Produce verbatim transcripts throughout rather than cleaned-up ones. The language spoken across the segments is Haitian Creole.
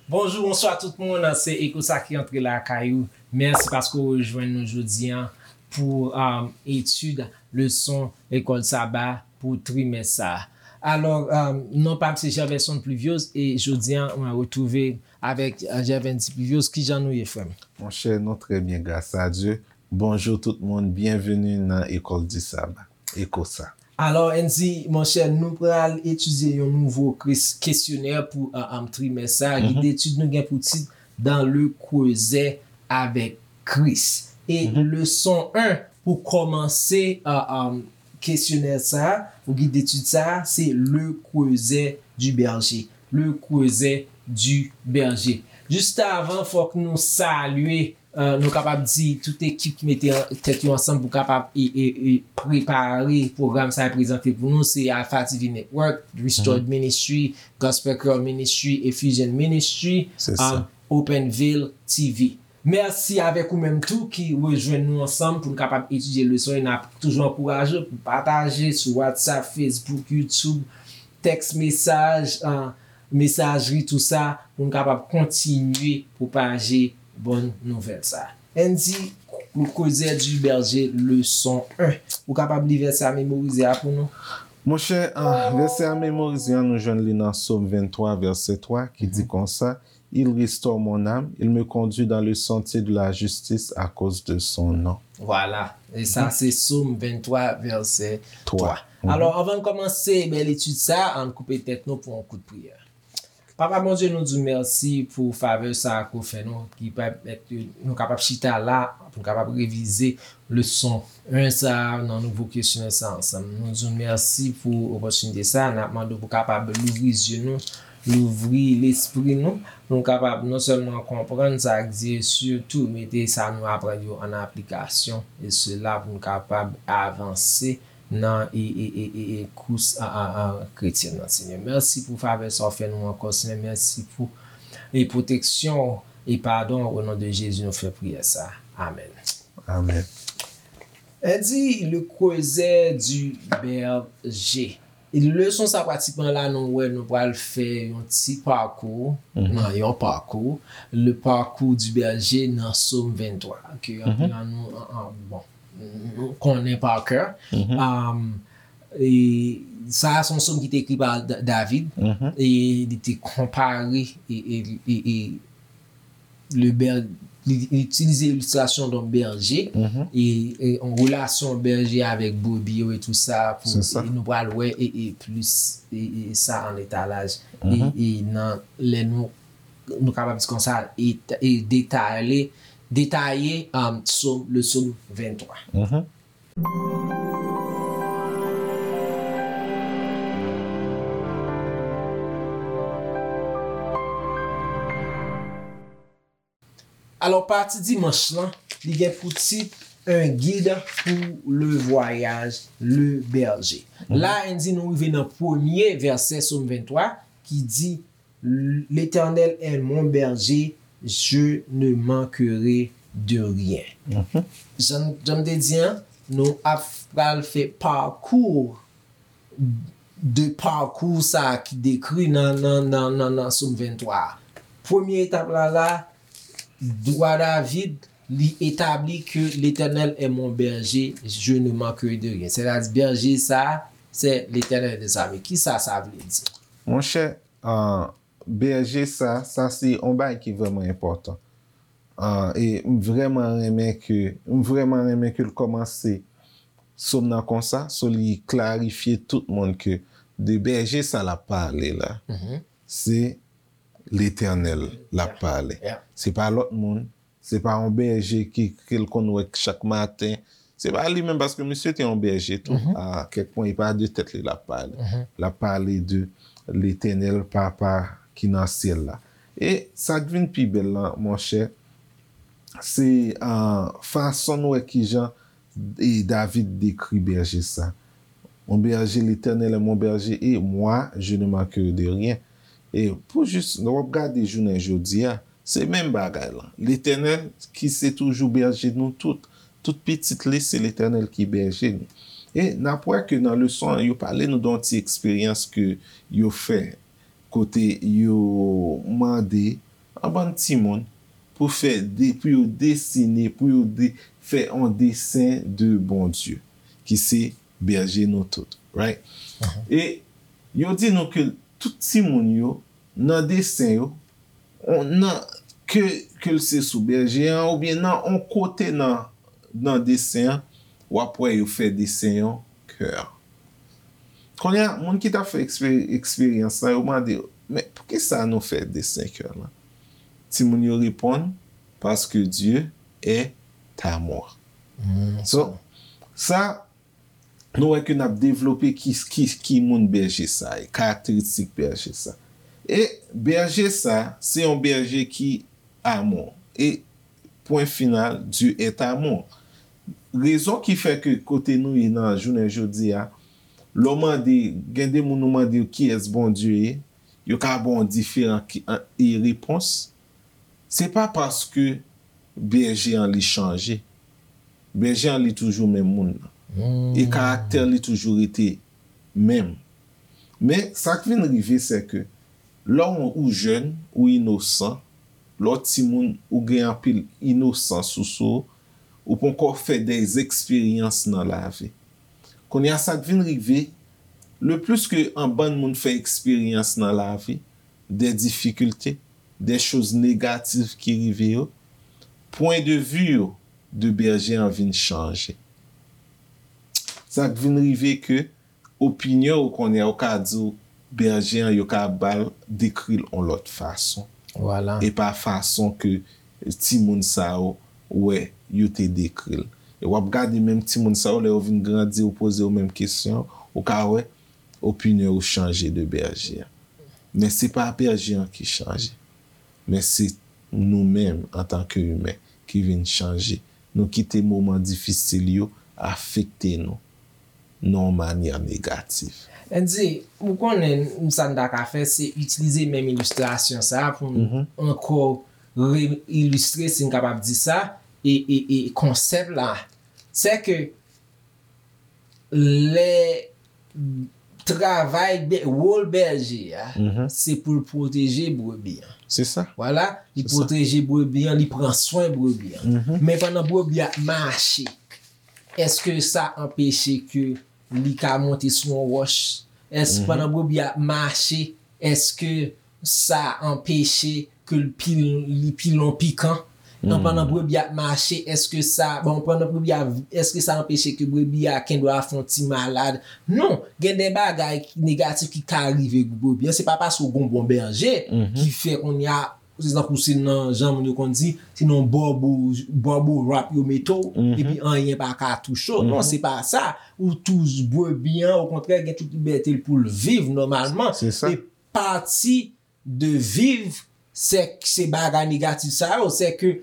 Bonjou, bonswa tout moun. Se Eko sa ki antre lakay ou. Mèsi paske w rejwenn nou jodi a pou um, etid leson lekòl saba pou trimès sa a. Alò, um, non pa m se Gervais Pluviose e jodi a mwen retwouve avèk uh, Gervais Pluviose. Kijan nou ye, frè m? Monchè, nou trè byen, gras a Dye. Bonjou tout moun, byenveni nan Ecole du Sabbat, Eko sa. Alò, Andy, monchè, nou pral etidye yon nouvo kris- kesyonè pou uh, um, trimès sa a. Gid detid nou gen pou tit Dans le creuset avec Christ. E leson en pou kòmanse uh, um, kesyonè sa a, pou gid detid sa a, se Le Creuset du Berger. Le Creuset du Berger. Jis avan, fòk nou salye, uh, nou kapab di tout ekip ki mete tèt yo ansanm pou kapab e, e, e prepare pwogram sa a prezante pou nou, se Alpha T V Network, Restored Ministry, Gospel Choir Ministry, Efficient Ministry, Se sa. um, Open Veil T V. Mèsi avèk ou menm tou ki rejwenn nou ansanm pou n kapab etidye leson yo. N ap toujou ankouraje w pou pataje sou WhatsApp, Facebook, YouTube, tèks mesaj, uh, mesajri, tou sa, pou n kapab kontinye pwopaje bòn nouvèl sa a. Andy, Le Creuset du Berger, leson en. Ou kapab li vèsè a memorize a pou nou? Monchè, uh, vèsè a memorize a, nou jwenn li nan Sòm venntwa, vèsè twa, ki di konsa, Il restaure mon âme, il me conduit dans le sentier de la justice à cause de son nom. Vwala. E sa, se Sòm venntwa, vèsè twa. Alò, anvan n kòmanse bèl etid sa a, ann koupe tèt nou pou yon kout priyè. Papa Bondye, nou di w mèsi pou favè sa a ke w fè nou, ki pèmèt ke nou kapab chita la, pou nou kapab revize leson en sa a nan nouvo kesyonè sa a ansanm. Nou di w mèsi pou opòtinite sa a. N ap mande w pou w kapab louvri zye nou, louvri lespri nou, pou nou kapab non sèlman konprann sa k di, e sitou mete sa nou aprann yo an aplikasyon, e sela pou nou kapab avanse nan e, e, e, e, e kous a, a, a, kretyèn nan, Senyè. Mèsi pou favè sa w fè nou ankò, Senyè. Mèsi pou e pwoteksyon w e padon w. O non de Jezi, nou fè priyè sa. Amèn. Amèn. Andy, Le Creuset du Berger. E leson sa pratikman la, nou wè, nou pral fè yon ti pakou, nan yon pakou, le parcours du berger nan Sòm venntwa, ke anpil nan nou, an, an, bon, nou konnen pa kè. Um, e sa a se yon sòm ki te ekri pa Da- David, e li te konpare e, e, e, e le ber- li li itilize ilistrasyon yon bèje e, e yon relasyon bèje avèk brebi yo e tou sa pou Se sa. E nou pral wè e, e plis e, e sa an etalaj e, e nan lè nou nou kapab di konsa e, e detale detaye um, sòm le sòm venntwa. Alò, pati dimanch lan, li gen pou tit Un guide pour le voyage, le berger. La, Andy, nou rive nan premye vèsè Sòm venntwa ki di, L'Éternel est mon berger, je ne manquerai de rien. Jan jan m te di an, nou ap pral fè pakou de pakou sa a ki dekri nan, nan, nan, nan, nan Sòm venntwa a. Premye etap la la, wa David, li etabli ke Letènèl est mon berger, je ne manquerai de rien. Sètadi, bèje sa a, se Letènèl de zame. Kisa sa vle di? Monchè, uh, bèje sa, sa se yon bagay ki vrèman enpòtan. Uh, e m vrèman renmen ke, m vrèman renmen ke l kòmanse Sòm nan konsa, so li klarifye tout moun ke de bèje sa l ap pale la, se Letènèl l ap pale. Se pa lòt moun, se pa yon bèje ki, ke l konn wè chak maten. Se pa li menm, paske misye te yon bèje tou. A kèk pwen, e pa de tèt li l ap pale. L ap pale de Letènèl, Papa ki nan syèl la. E sa k vin pi bèl lan, monchè, se uh, fason n wè kijan e David dekri bèje sa. Mon berger, l'Éternel est mon berger, et moi, je ne manquerai de rien. E pou jis, lè w ap gade jounen jodi a, se menm bagay lan. Letènèl, ki se toujou bèje nou tout, tout pitit li, se Letènèl ki bèje nou. E n ap wè ke nan leson an, yo pale nou de yon ti eksperyans ke yo fè kote yo mande yon bann timoun pou fè de, pou yo desine, pou yo de, fè yon desen de Bondye, ki se bèje nou tout, right? E yo di nou ke tout timoun yo, nan desen yo, on, nan, ke, ke l se sou bèje an, oubyen nan on kote nan, nan desen an, w ap wè yo fè desen yon kè. Kounye a, moun ki t ap fè ekspe-, eksperyans lan, yo mande yo, "Men, poukisa nou fè desen kè lan?" Timoun yo reponn, "Parce que Dieu est amour." So, sa, nou wè ke n ap devlope ki, ki, ki moun bèje sa ye, karakteristik bèje sa. E bèje sa, se yon bèje ki amou. E pwen final, Dieu est amour. Rezon ki fè ke kote nou ye nan jounen jodi a, lè w mande, gen de moun ou mande yo kiyès Bondye ye, yo ka ba w diferan ki, an, e repons. Se pa paske bèje an li chanje. Bèje an li toujou menm moun nan. E karaktè li toujou rete menm. Men, sa k vin rive, se ke lè w, ou jèn, ou inosan, lè w timoun, ou gen anpil inosans ou sou ou, ou poko fè de eksperyans nan lavi. Kounye a, sa k vin rive, le plus ke an bann moun fè eksperyans nan lavi, de difikilte, de choz negatif ki rive yo, pwen de vi yo de bèje an vin chanje. Sa k vin rive ke opinyon ou konnen, ou ka di w bèje an, yo ka ba l, dekri l yon lòt fason. E pa fason ke timoun sa yo wè yo te dekri l. E w ap gade menm timoun sa yo, lè yo vin grandi, ou poze yo menm kesyon, ou ka wè opinyon yo chanje de bèje an. Men se pa bèje an ki chanje. Men se nou menm, antanke imen, ki vin chanje. Nou kite moman difisil yo afekte nou nan yon manyè negatif. Andy, ou konnen, sa n ta ka fè, se itilize menm ilistrasyon sa a pou n ankò re-ilistre, si n kapab di sa, e, e, e konsèp la. Se ke lè travay bè-, wòl bèje a, se pou l pwoteje brebi an. Se sa. Vwala, li pwoteje brebi an, li pran swen brebi an. Men pandan brebi a ap mache, èske sa anpeche ke li ka monte sou yon wòch? Èske pandan brebi a ap mache, èske sa anpeche ke l pi, li pi lon pikan? Nan pandan brebi ap mache, èske sa, bon, pandan brebi a, èske sa anpeche ke brebi a gendwa fè yon ti malad? Non, gen de bagay ki negatif ki ka rive brebi an. Se pa paske w gon bon bèje ki fè kounye a, se tankou se nan, jan moun yo konn di, se nan bòbo, bòbo rap yo mete w, epi anyen pa ka touche w. Non, se pa sa. Ou toujou brebi an, okontrè, gen tout libète l pou l viv nòmalman. E pati de viv, se, se bagay negatif sa yo, se ke,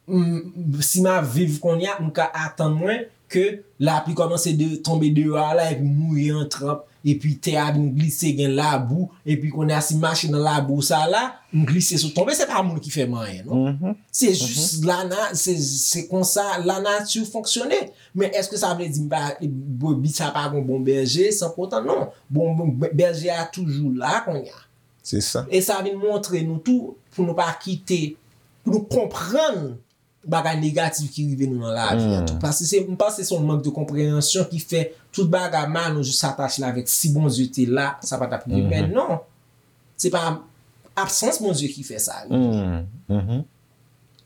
m, si m ap viv kounye a, m ka atann mwen ke lapli kòmanse de, tonbe deyò a la, epi mouye an tranp, epi tè a vin glise, gen labou, epi kounye a, si m mache nan labou sa la, m glise sot tonbe, se pa moun ki fè m anyen, non. Se jis lana-, se, se konsa lanati fonksyone. Men èske sa vle di m pa, brebi sa pa gon bon bèje, san poutan, non. Bon, bon, bèje a toujou la kounye a. Se sa. E sa vin montre nou tou, pou nou pa kite, pou nou konprann bagay negatif ki rive nou nan lavi a tou. Paske se, m panse se yon mank de konpreyansyon ki fè tout bagay mal nou jis atache l avèk si Bondye te la, sa pa t ap rive. Men non. Se pa absans Bondye ki fè sa rive.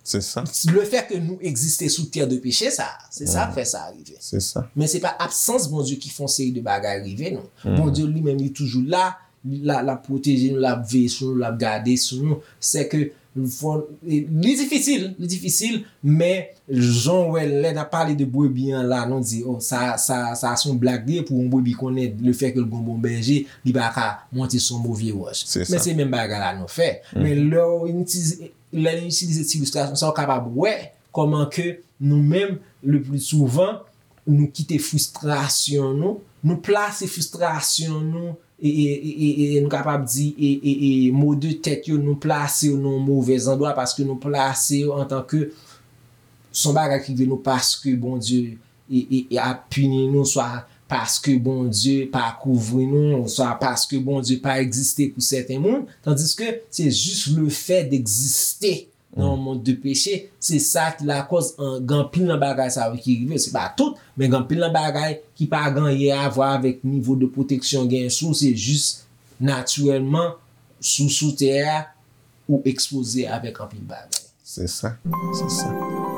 Se sa. Le fè ke nou egziste sou tè de peche sa, se sa k fè sa rive. Se sa. Men se pa absans Bondye ki fè yon seri de bagay rive nou. Bondye li menm li toujou la, li la, l ap pwoteje nou, l ap veye sou nou, l ap gade sou nou. Se ke fò, e, li difisil, li difisil, men jan w wè lè n ap pale de brebi an la, nou di, o, sa, sa, sa se yon blag li ye pou yon brebi konnen le fè ke l gon bon bèje, li pa ka monte sou yon move wòch. Men se menm bagay la nou fè. Men lè w itilize, lè nou itilize ti ilistrasyon sa, w kapab wè kòman ke nou menm, le pli souvan, nou kite fristrasyon nou, nou plase fristrasyon nou, e, e, e, e, e nou kapab di, e, e, e mo de tèt yo, nou plase yo nan yon movèz andwa paske nou plase yo antanke se yon bagay ki rive nou paske Bondye e, e, e ap pini nou, swa paske Bondye pa kouvri nou, oswa paske Bondye pa egziste pou sèten moun, tandiske se jis le fè d'egziste nan yon mond de peche, se sa ki lakòz gen anpil nan bagay sa yo ki rive. Se pa tout, men gen anpil nan bagay ki pa gen anyen a vwa avèk nivo de pwoteksyon w genyen sou w, se jis natirèlman sou sou tè a ou ekspoze avèk anpil bagay. Se sa, se sa.